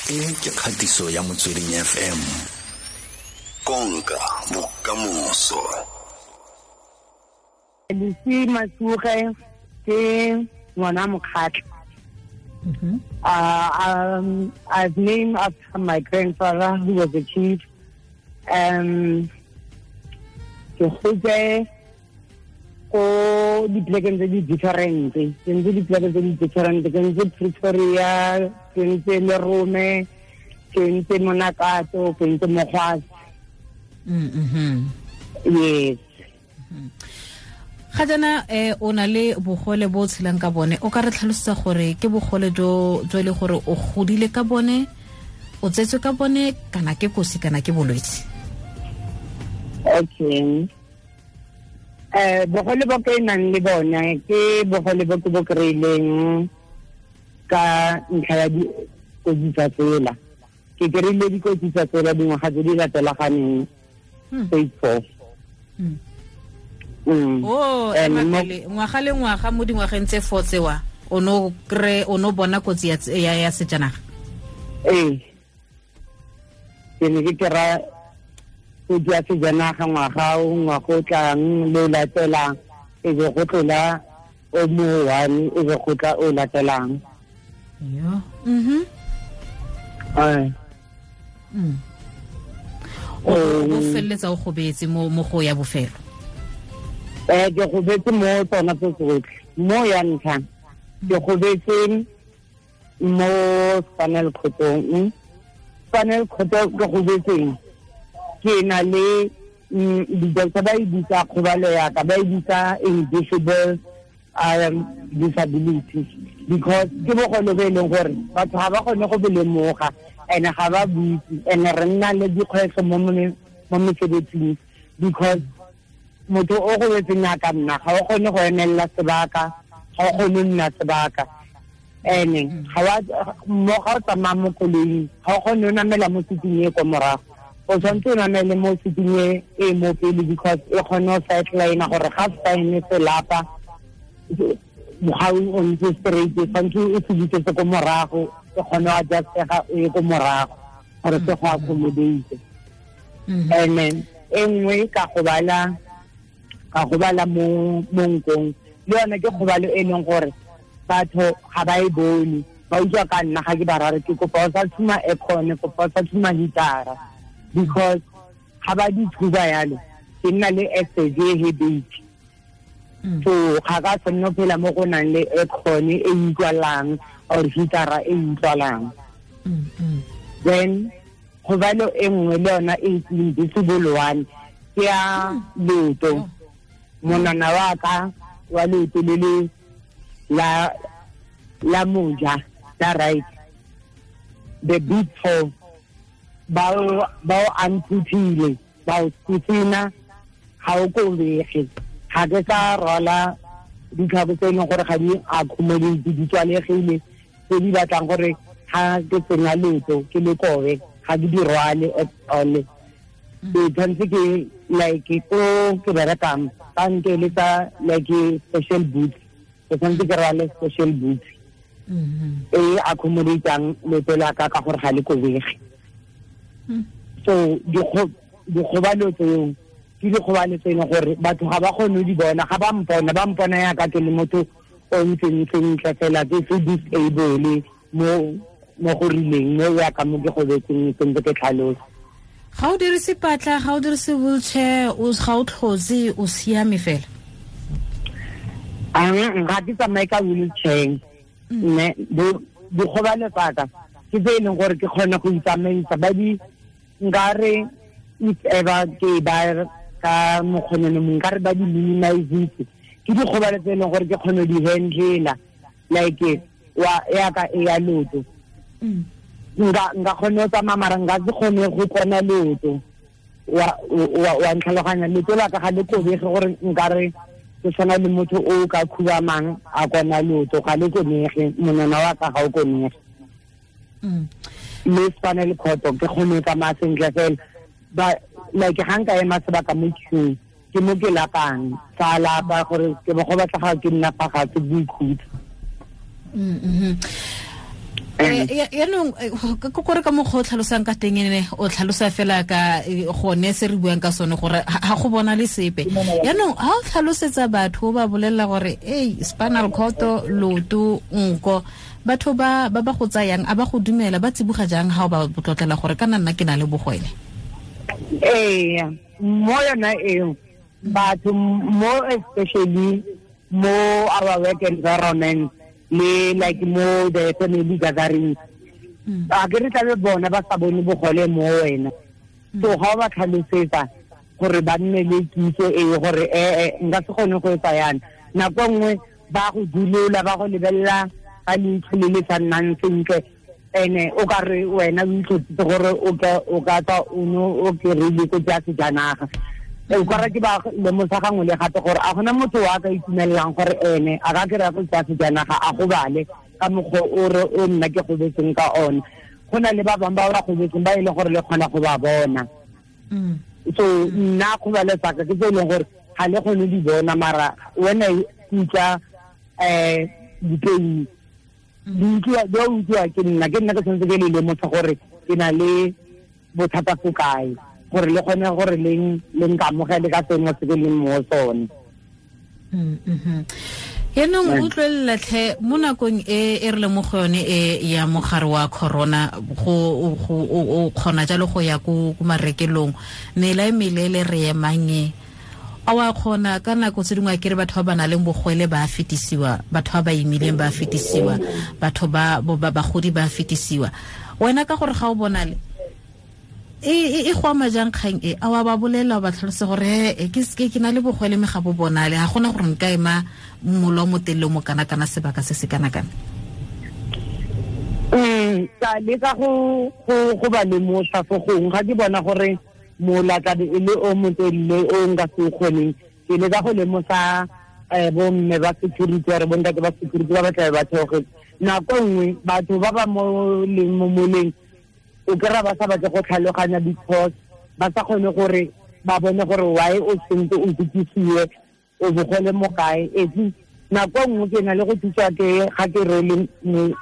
E ke kgatiso ya Motsweding FM. Konka bokamoso. Lesi Masuge ke ngwana Mokgatla. I've named after my grandfather, who was a chief. Ke gotse ko dipolekeng tse di different, ke ntse dipoleke tse di different, ke ntse Pretoria, ke ntse Lerome, ke ntse Monakato, ke ntse Mogwase. Yes. Ga jaana o na le bogole bo o tshelang ka bone, o ka re tlhalosetsa gore ke bogole jo jo e le gore o godile ka bone, o tsetswe ka bone, kana ke kosi kana ke bolwetse? Okay. Bogole bo ke nang le bone ke bogole bo ke bo kry-ileng ka ntlha ya dikotsi tsa tsela. Ke kry-ile dikotsi tsa tsela dingwaga tse di latelaganeng, stage 4. Oh, ngwaga le ngwaga mo dingwageng tse 4 tsewa o no kry, o no bona kotsi ya sejanaga? Ee, ke ne ke kry-a kotsi ya sejanaga ngwaga o, ngwaga o tlang le o latelang, e be go tlola o mo one, e be go tla o latelang. Yo. O feleletsa o gobetse mo go ya bofelo? Ke gobetse mo tsona tse tsotlhe. Mo ya ntlha, ke gobetse mo spinal cord-ong. Spinal cord ke gobetseng, ke na le, di-doctor ba e bitsa kgobalo ya ka, ba e bitsa invisible disability, because ke bogole bo e leng gore batho ga ba kgone go bo lemoga, and ga ba buitse, and re nna le dikgwetlho mo mesebetsing, because motho o gobetseng yaka nna ga o kgone go emelela sebaka, ga o kgone go nna sebaka, and ga wa, mo ga o tsamaya mo koloing, ga o kgone go namela mo seating e ko morago, o tshwanetse o namele mo seating e mo pele, because e kgone go sideline gore ga spine se lapa, ga o ntse straight, tshwanetse o se busetse ko morago, e kgone go adjustega o ye ko morago gore se go accommodate. And then e nngwe ka gobala mo nkong, le yone ke kgobalo e leng gore batho ga ba e bone, ba utlwa ka nna ga ke ba rare ke kopa o sa tshuma aircon, kopa o sa tshuma heater-a, because ga ba di tshuba yalo ke nna le access e headache. So ga ka tshwanela go phela mo go nang le aircon e utlwalang or heater-a e utlwalang. Then kgobalo e nngwe le yona e invisible one ke ya leoto. Monwana wa ka wa leoto le le la moja, la right, the big toe, ba o amputile, ba o tsitsina, ga o kobege. Ga ke sa rwala ditlhako tse e leng gore ga di accommodate, di tswalegile, tse di batlang gore ga ke tsenya leoto ke le kobe, ga ke di rwale at all. Ke tshwanetse ke like ko ke berekang ba nkeletsa like special boots, ke tshwanetse ke rwale special boots e accommodatang leoto la ka ka gore ga le kobege. So dikgobalo tseo ke dikgobalo tse e leng gore batho ga ba kgone go di bona, ga ba mpona, ba mpona yaka ke le motho o ntseng sentle fela, ke se disable mo go rileng, mo yaka mo ke gobetseng sentse ke tlhalosa. Ga o dirise patla, ga o dirise wheelchair, ga o tlhotse, o siame fela? Ga ke tsamaye ka wheelchair, mme dikgobalo tsa ka ke tse e leng gore ke kgone go itsamaisa. Ba di nkare if ever ke ba ka mokgonene mongwe, nkare ba di minimize-itse. Ke dikgobalo tse e leng gore ke kgone go di handle-a, like wa yaka e ya leoto. Nka kgone go tsamaya, mara nka se kgone go kona leoto. Wa ntlhaloganya, leoto la ka ga le kobege gore nkare ke tshwana le motho o ka khubamang a kona leoto, ga le konege, monwana wa ka ga o konege. Mme spinal cord ke kgone go tsamaya sentle fela. Ba like ga nka ema sebaka mo queue, ke mo ke lapang, sa lapa gore ke bo go batla ga ke nna fa gatshe boikhutso. Yaanong kore ka mokgwa o tlhalosang ka teng ene o tlhalosa fela ka gone se re buang ka sone gore ga go bona le sepe. Yaanong ga o tlhalosetsa batho o ba bolelela gore ei spinal cord, loto, nko, batho ba ba go tsayang a ba go dumela, ba tsiboga jang ga o ba tlotlela gore kana nna ke na le bogwele? Ee, mo yona eo batho mo especially mo our work environment le like mo the family gathering, a ke re tlabe bona ba sa bone bogole mo wena. So ga o ba tlhalosetsa gore ba nne le kitso e gore nka se kgone go etsa yana, nako nngwe ba go dulola, ba go lebelela ka leitlho le le sa nnang sentle, ene o ka re wena o itlhotsitse gore o ka tswa o ne o kry-ile kotsi ya sejanaga. O ka re ke ba lemosa gangwe le gape gore a gona motho wa ka itumelelang gore ene a ka kry-a kotsi ya sejanaga a gobale ka mokgwa o re o nna ke gobetseng ka one. Go na le ba bangwe ba ba gobetseng ba e leng gore le kgona go ba bona. So nna kgobalo tsaka ke tse e leng gore ga le kgone di bona, mara wena utlwa dipain di utlwa ke nna ke tshwanetse ke le lemosa gore ke na le bothata fo kae, gore le kgone gore le nkamogele ka sengwe se ke leng mo sone. Yaanong utlwelela tlhe mo nakong e re le mo go yone e ya mogare wa corona, go o kgona jalo go ya ko marekelong, mela e melele re emang e, a wa kgona ka nako tse dingwe a kere batho ba ba nang le bogwele ba fetisiwa, batho ba ba imileng ba fetisiwa, batho ba bagodi ba fetisiwa. Wena ka gore ga o bonale e go ama jang kgang e? A wa ba bolela ba tlhalose gore ke na le bogwele mme ga bo bonale, ga gona gore nka ema mola o motelele mo kana-kana sebaka se se kana-kana? Ka leka go ba lemosa fo gongwe ga ke bona gore mola tlabe e le o motelele o nka se o kgoneng, ke leka go lemosa bomme ba security gore bontate ba security ba ba tlabe ba theogetse. Nako nngwe batho ba ba mo leng mo moleng o kry-a ba sa batle go tlhaloganya because ba sa kgone gore ba bone gore why o sentse o kutlwisiwe o bogole mo kae. At nako nngwe ke na le go thusiwa ke ga ke rwele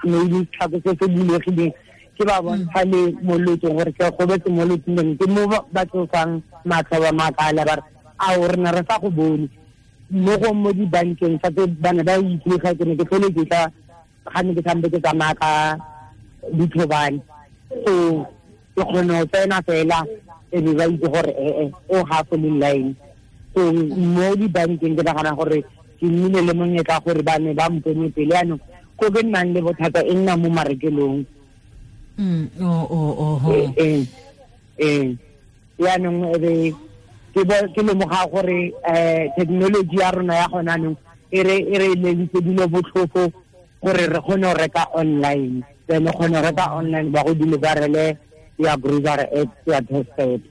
maybe setlhako se se bulegileng, ke ba bontsha le mo lotsong gore ke gobetse mo lotsong, ke mo ba tlosang matlho ba makala ba re ao rena re sa go bone. Mo go mo dibankeng fa ke bana ba itse ga ke ne ke tlhole ke tla ga ne ke sampe ke tsamaya ka dithobane, so ke kgone go tsena fela e be ba itse gore o ga fo le line. So mo dibankeng ke nagana gore ke nnile le monyetla gore ba ne ba mpone pele. Yaanong ko ke nnang le bothata e nna mo marekelong. Yaanong ebe ke lemoga gore technology ya rona ya gona anong e re leleditse dilo botlhofo gore re kgone go reka online. Then o kgone go reka online ba go deliverele ya grocery at ya doorstep.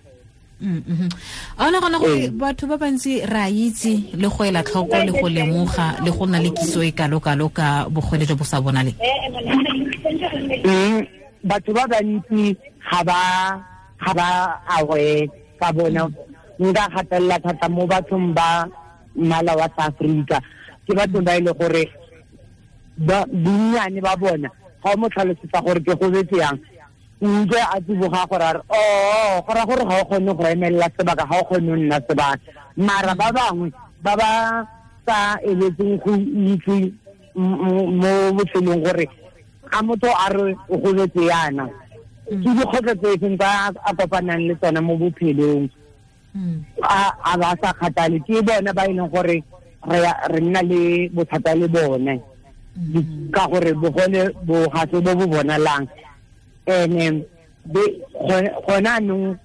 A o nagana gore batho ba bantsi re a itse le go ela tlhoko le go lemoga le go nna le kitso e kalo-kalo ka bogole jo bo sa bonaleng? Batho ba bantsi ga ba aware ka bona. Nka gatelela thata mo bathong ba mmala wa South Africa, ke batho ba e le gore bonnyane ba bona ga o mo tlhalosetsa gore ke gobetse yang, utlwe a tsiboga gore a re go raya gore ga o kgone go emelela sebaka, ga o kgone go nna sebaka. Mara ba bangwe ba ba sa eletseng go itse mo botshelong gore ga motho a re o gobetse yana, ke dikgwetlho tse feng tsa a kopanang le tsona mo bophelong, a ba sa kgathale. Ke bona ba e leng gore re nna le bothata le bone ka gore bogole bo ga se bo bo bonalang. Ene gona anong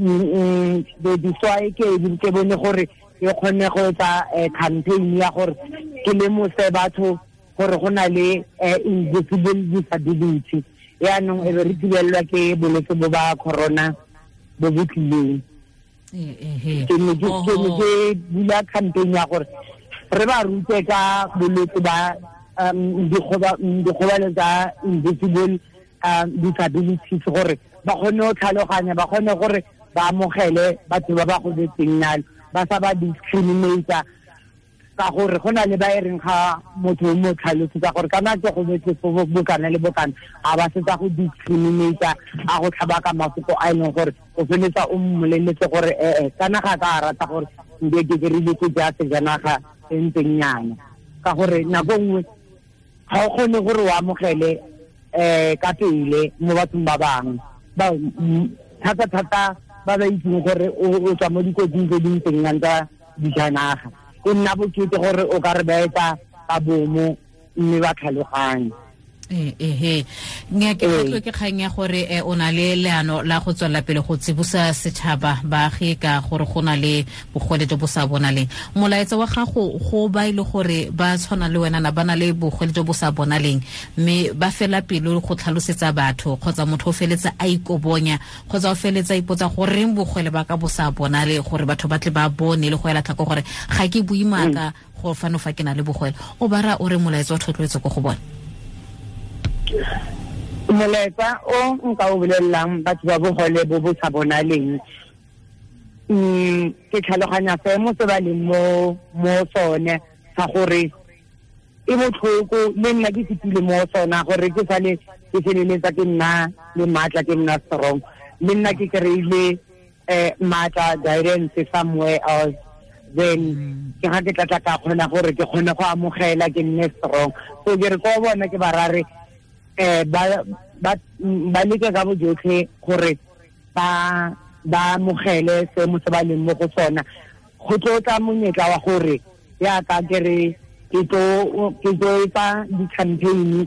diswae ke bone gore ke kgone go etsa campaign ya gore ke lemose batho gore go na le invisible disability. Yaanong e be re thibelelwa ke bolwetse bo ba corona bo bo tlileng. Ke ne ke bula campaign ya gore re ba rute ka bolwetse ba dikgobalo tsa invisible disabilities gore ba kgone go tlhaloganya, ba kgone gore ba amogele batho ba ba gobetseng nalo, ba sa ba discriminate. Ka gore go na le ba e reng ga motho o mo tlhalosetsa gore kana ke go betse bokana le bokana, a ba setsa go discriminate, a go tlhaba ka mafoko a e leng gore o feletsa o mmoleletse gore kana ga ka a rata gore nke ke dirile ke ja sejanaga e ntseng nyana. Ka gore nako nngwe ga o kgone gore o amogele ka pele mo bathong ba bangwe, thata-thata ba ba itseng gore o tswa mo dikotsing tse di ntseng yang tsa dijanaga. E nna bokete gore o ka re ba etsa ka bomo mme ba tlhaloganye. Nnyaa, ke tlotlo ke kgang ya gore o na le leano la go tswelela pele go tsibosa setšhaba baagi ka gore go na le bogole jo bo sa bonaleng. Molaetsa wa gago go ba ile gore ba tshwana le wena na ba na le bogole jo bo sa bonaleng, mme ba fela pelo go tlhalosetsa batho, kgotsa motho o feletsa a ikobonya, kgotsa o feletsa a ipotsa goreng bogole ba ka bo sa bonale, gore batho ba tle ba bone le go ela tlhoko gore ga ke bue maaka go fano fa ke na le bogole. O ba ra o re molaetsa wa thotloetso ko go bone? Molaetsa o nka o bolelelang batho ba bogole bo bo sa bonaleng, ke tlhaloganya seemo se ba leng mo sone sa gore e botlhoko, le nna ke fetile mo sona gore ke sale ke feleletsa ke nna le maatla, ke nna strong, le nna ke kry-ile maatla guidance somewhere else, then ke ga ke tlatla ka kgona gore ke kgone go amogela ke nne strong. So ke re ko bona ke ba rare ba leke ka bojotlhe gore ba amogele seemo se ba leng mo go sona. Go tlo tla monyetla wa gore yaka ke re ke tlo etsa di-campaign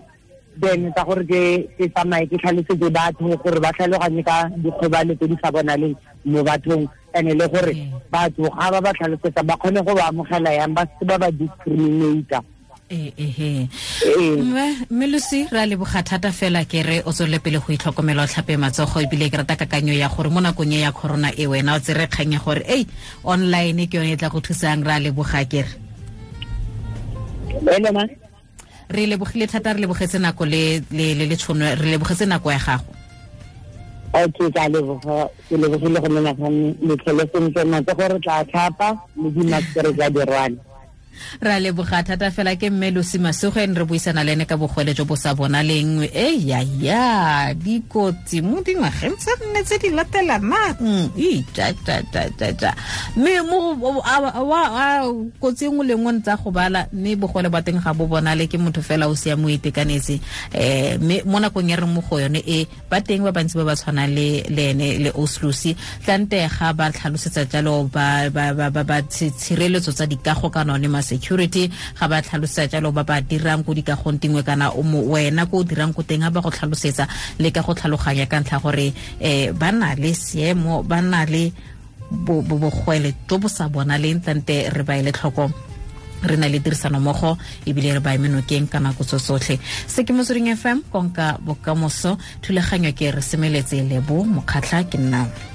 then tsa gore ke tsamaye ke tlhalosetse batho gore ba tlhaloganye ka dikgobalo tse di sa bonaleng mo bathong, and le gore batho ga ba ba tlhalosetsa ba kgone go ba amogela yang, ba se ba ba discriminate. Mme Lucy, re a leboga thata fela, ke re o tswelele pele go itlhokomela, o tlhape matsogo, ebile ke rata kakanyo ya gore mo nakong e ya corona e wena o tsere kgang ya gore ei online ke yone e tla go thusang. Re a leboga ke re. Re lebogile thata, re lebogetse nako le le tšhono, re lebogetse nako ya gago. Okay, ka leboga, ke lebogile go menagane le tlhole sentle, matsogo re tla tlhapa le di-mask re tla di rwala. Ra leboga thata fela. Ke mme Lucy Masuge, re buisana le ene ka bogole jo bo sa bonaleng. E ya ya dikotsi mo dingwageng tse nne tse di latelanang, mme mo kotsi e nngwe le nngwe ntsa go bala, mme bogole ba teng ga bo bonale, ke motho fela o siame o itekanetse. Mme mo nakong ya re mo go yone e ba teng ba bantsi ba ba tshwanang le ene le Oslusi, tlante ga ba tlhalosetsa jalo ba ba tshireletso tsa dikago kana one security, ga ba tlhalosetsa jalo ba ba dirang ko dikagong dingwe kana wena ko o dirang ko teng, ga ba go tlhalosetsa le ka go tlhaloganya ka ntlha gore ba na le seemo, ba na le bogwele jo bo sa bonaleng, tlante re ba ele tlhoko, re na le tirisanommogo ebile re ba eme nokeng ka nako tso tsotlhe. Se ke Motsweding FM, konka bokamoso, thulaganyo ke re semeletse Lebo Mokgatlha, ke nna.